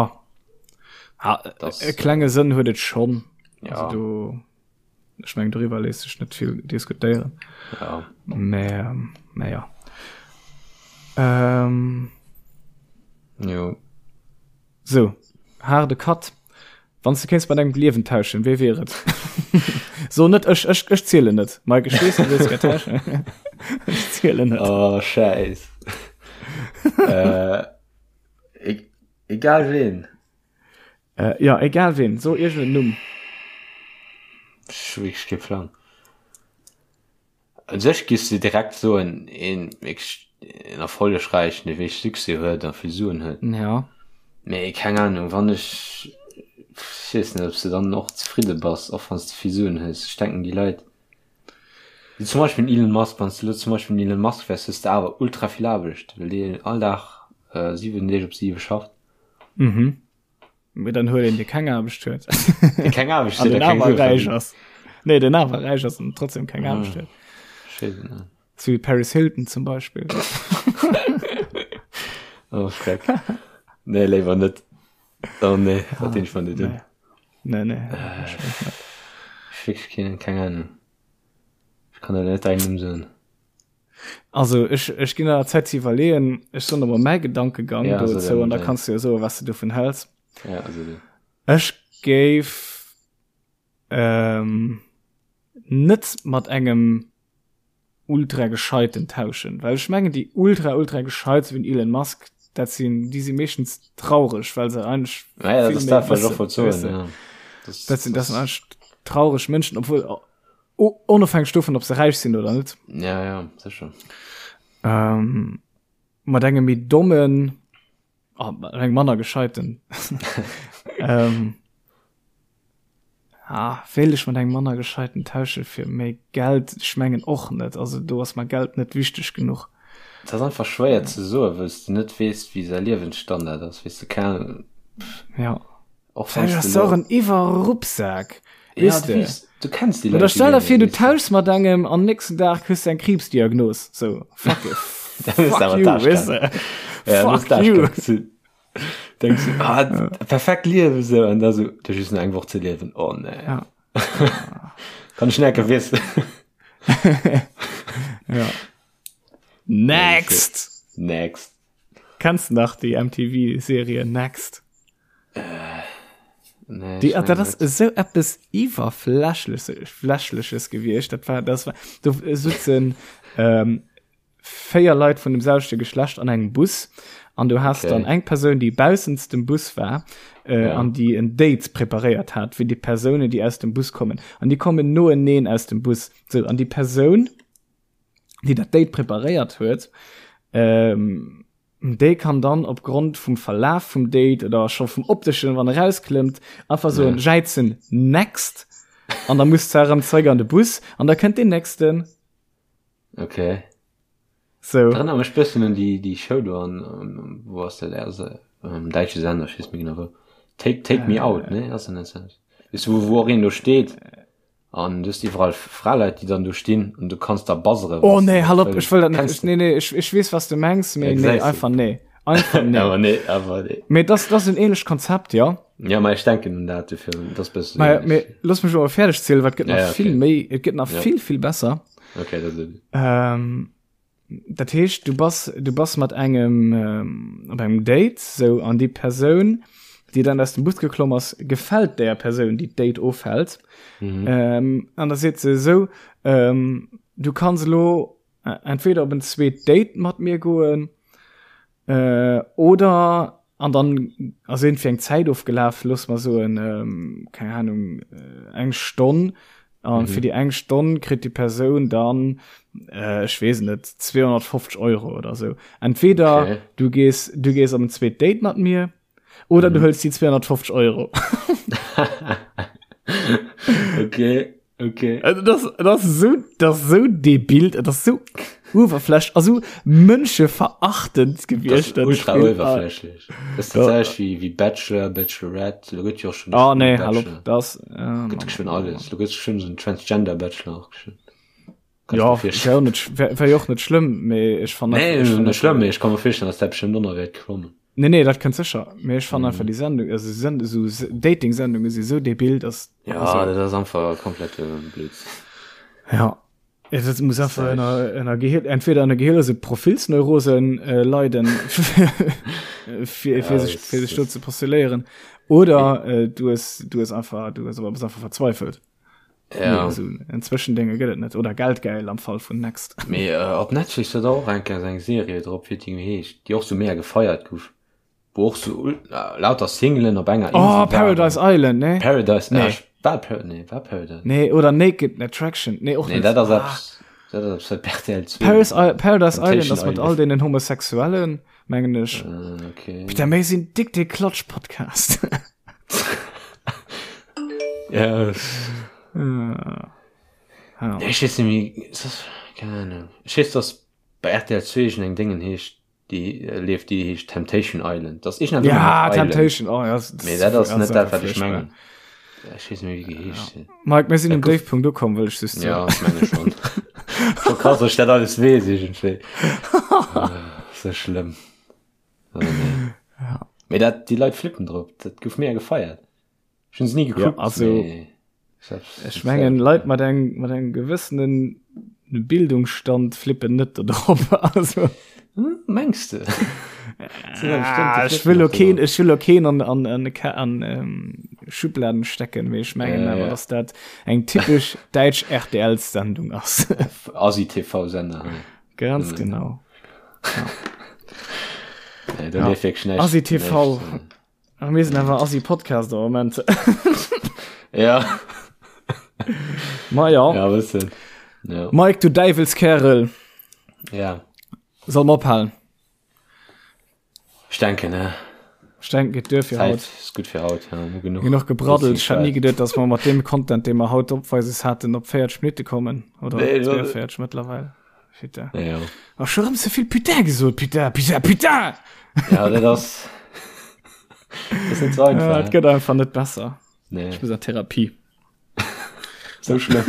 Ah, Das, e klenge Sënn huet et schonn. Ja. Also do, Ech mengen doriwwer léisst sech net vill diskutéieren. Ja. Mä, ähm, mä ja. Ähm, Jo. So, haarde Cut. Wann s du kéints mat engem d'Liewen tauschen, wee wier et? So net ech, ech, ech zielen net. Mike, ech weess, du wëlls gär tauschen. Ech zielen net. Oh, Schäiss. äh, e egal ween. Äh, ja, egal ween, so irgendeinen Numm. Ech hu wierklech kee Plang. U sech giffs de direkt soen, een wierklech een erfollegräichen, dee wierklech Succès huet a vill Suen huet. Ja. Mee keng Ahnung, wann ech, ech weess net, ob s de dann och zefridde bass, och wann s de vill Suen hues. Ech denken déi Leit, wéi zum Beispill den Elon Musk, wann s de elo zum Beispill den Elon Musk wäers, hues de awer ultra vill Aarbecht, well deen all Dag 7 Deeg op 7 schafft. Mhm. Mee dann huet een, dee keng Aarbecht huet. Dee keng Aarbecht huet, a keng Sue verdéngt. Ass. Nee, den awer räich ass an trotzdem keng Aarbecht huet. Ech weess et net. Sou wéi Paris Hilton zum Beispill. Oh, Schreck. Nee, léiwer net. Oh nee, dat dinn ech mer net un. Nee, nee. Ech wierklech keen, keng Ahnung. Ech kann der net däin Numm soen. Also ech, ech ginn der Zäit ze iwwerleeën. Ech soen der mol mäi Gedankegang Ja, so dozou dann an da däin. kanns du jo soen, was du dovun häls. Ja, also du. Ech géif ähm, net mat engem ultra gescheiten tauschen, well ech mengen déi ultra ultra gescheit sou wéi den Elon Musk, dat sinn déi si meeschtens traureg, well se eigentlech Naja, dat vill ass méi dat, wat ech och wëssen, wollt soen, weess de. ja. Das, Dat sinn dat sinn das, eigentlech traureg Mënschen, obwuel onofhängeg dovun, ob se räich sinn oder net. ja, ja, sécher. Ähm, mat engem méi dommen, oh, mat engem manner gescheiten. ähm, ah, wéilt ech mat engem manner gescheiten tausche fir méi Geld? Ech mengen och net. Also do ass mer Geld net wichteg genuch. Et ass einfach schwéier ze soen, wëll s de net weess, wéi säi Liewensstandard ass, weess de, keng Ahnung. Ja. Och wann Vläicht s ass de se och lo en Iwwerruppsak. Ja, Weess du de? weess, du kenns déi Oder Leit stell jo der vir, net, du weess de. tauschs mat engem an nächsten Dag kriss du eng Kriibsdiagnos. So, fuck it. Dann hues de Fuck awer you, d'Aarschkacke. weess de? Ja, dann hues Fuck d'Aarschkacke you. gezunn. Denkst du, ah, perfekt Liewen, sou, an da sou, du hues just nach eng Woch ze liewen. Oh nee. Ja. Kann ech net wissen. Ja. Next! Next. Kennst du nach déi MTV-Serie Next? Äh, nee, Die, dat ass esou eppes iwwerflächleches gewiescht. Dat war, das war, do sitzen ähm, véier Leit vun dem selwechte Geschlecht an engem Bus an du hast okay. dann eng Persoun, déi baussens dem Bus war äh, ja. an déi en Date preparéiert hat fir déi Persounen, déi aus dem Bus kommen. An déi kommen noeneen aus dem Bus. So, an déi Persoun, déi dat Date preparéiert huet, ähm, déi kann dann op Grond vum Verlaf vum Date oder scho vum opteschen, wann e rausklëmmt, einfach soen, ja. jäizen next an da muss se erëm zeréck an de Bus an da kënnt deen nächsten. Okay. So. Dat erënnert mech bëssen un déi, déi Show do an, wou ass dat, also, um däitsche Sender, ech weess net méi genau wou. Take, Take Me Out, ne? Ass dat net dat? Weess du, wou, wou och een do steet An du hues iwwerall Fraleit, déi dann do stinn an du kanns da buzzeren. Oh nee, hal op, ech wëll dat net. Nee, nee, ech, ech weess, was du mengs, mee nee, einfach nee. Einfach nee. Awer nee, awer nee. Mee das, das ass en ähnlecht Konzept, ja. Ja, ma ech denken un dat dofir, das ass bëssen Mä, ähnlech. mee looss mech awer fäerdeg zielen, well et gëtt Ja, nach ja, okay. vill méi, et gëtt nach Ja. vill, vill besser. Okay, dat ass et. Ähm, Dat heescht, du bass, du bass mat engem ähm, op engem Date, sou, an déi Persoun, déi dann aus dem Bus geklomm ass, gefält där Persoun, déi d'Date ofhält. Mhm. Ähm, an da seet se esou, ähm, du kanns elo äh, entweder op en zweet Date mat mir goen, äh, oder an dann ass irgendwie eng Zäit ofgelaf, looss mer soen, ähm, keng Ahnung, äh, eng Stonn. An mhm. fir déi eng Stonn kritt déi Persoun dann, äh, ech weess net, 250 Euro oder sou. Entweder okay. du gees, du gees op en zweet Date mat mir, oder mhm. du hëls déi 250 Euro. okay. Okay. Also das, das ist so, das ist so debil, das ist so uewerflächlech, also mënscheverachtend gewiescht. Das ist ultra uewerflächlech. Das ist tatsächlich wie, wie Bachelor, Bachelorette, da gëtt jo och schon Oh nee, hallo, das, äh, gëtt schon alles. Da gëtt schon so en Transgender Bachelor och schon. Ja, wär och net, wär, wär jo och net schlëmm, mee ech fannen Nee, ech fannen net schlëmm, mee ech ka mer virstellen, dass dat bestimmt och nach wäert kommen. Nee, nee, dat kënnt sécher. Mee ech fannen einfach déi Sendung, also Send esou Dating-Sendunge si sou debil, dass Ja, also, dat ass einfach komplett Blödsinn. Ja. Ja, dat muss einfach ënner, ënner Gehir, entweder ënner Gehirlose Profilsneurosen äh, leiden, fir, Ja, fir sech, das, fir sech do das, ze postuléieren, oder äh, du hues, du hues einfach, du hues aber bist einfach verzweifelt. ja. Nee, so en Zwëschendénge gëtt et net. Oder geldgeil am Fall vun Next. Mee äh, op Netflix huet och eng Kéier eng Serie drop, wéi déi heescht, déi och sou mega gefeiert gouf, wou och sou äh, lauter Singlen op enger Oh, Insel waren. Paradise Island, ne? Paradise, Nee. äh, war Par nee, war Paradise. Nee, oder Naked Attraction. Nee, och Nee, net. dat ass Ah. eppes. Dat ass op RTL 2. Paris, Paradise Island ass mat all deenen Homosexuellen, mengen ech. Äh, okay. Peter, mir sinn dick de Klatsch-Podcast. Ja. Ja. Ja, ech weess net méi, ist das, keine Ahnung. Ech weess, dass bei RTL 2 eng eng Déngen heescht, déi äh, leeft, déi heescht Temptation Island. Das ist Ja, Temptation, oh, ja, das, Mee dat ass net dat, wat ech furchtbar. mengen. Ech weess net méi, wéi geheescht huet. Mike, mir sinn um Déifpunkt ukomm, wëll ech just soen. Ja, ech menge schon. Scho krass, dass ech dat alles weess iergendwéi. Ah, Sou schlëmm. Oh, nee. Ja. Mee dat, déi Leit flippen drop. Dat gouf mega gefeiert. Ech hunn se ni gekuckt. Ja, also, mee ech hab's Ech mengen, Leit mat eng, mat engem gewëssenen Bildungsstand flippen net do drop. Also, Hm, mengs de? ah, ech wëll lo keen, ech wëll lo keen an, an, an, an ähm, Schubladen stecken, mee ech mengen Ja, awer, ja. dass dat eng typesch däitsch RTL-Sendung ass. Asi-TV-Sender. hei. Ganz genau. Nee, do leeft wierklech näischt. Asi-TV. näischt, Ach, mir sinn awer Assi Podcast am Moment. Ja. Ma ja. Ja, bëssen. Ja. Mike, du Däiwelskerel. Ja. Soll mer ophalen? Ech denken, ne? Ech denken, geet duer fir Zäit haut. ist gut fir haut. Ja, hu genuch. Genuch gebraddelt. Ech hätt ni Gequatscht. geduet, dass mer mat deem Content, dee mer haut opweises haten, op 40 Minutte kommen. Oder Nee, dat- 42 mëttlerweil. Putain. Ja, ja. Ach, schon rëm ze vill Putain gesot. Putain, putain, putain! Ja, dat ass. Dat ass net so einfach. Ja, et gëtt einfach net besser. Nee. Ech muss an Therapie. So schlëmm.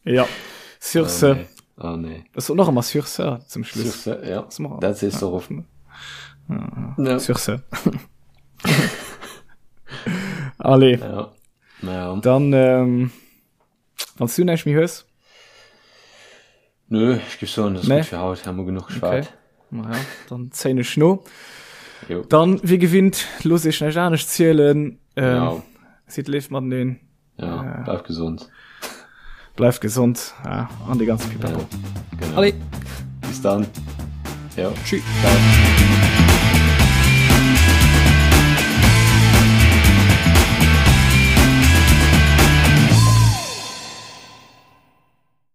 Ja. Sur Oh, ce. nee. Oh nee. Das soll noch immer sur ce zum Schluss. Sur ce, ja. Das machen wir. Dat sees du och. Ja. Sur ce. Allez, Ja. Ja. dann, ähm, Wann du näischt méi hues? Nö, ech géif soen, dat ass Nee. gutt fir haut, hu mer genuch geschwat. Okay. Ma ja, dann zéien ech no. Jo. Dann, wéi gewinnt, looss iech näischt anescht zielen. Ähm, Genau. Sidd léif mateneen. Ja, bleift gesond. Bleift gesond. Ja, an déi ganze Pipapo. Genau. Allez, Bis dann. Jo. tschüss. Ciao.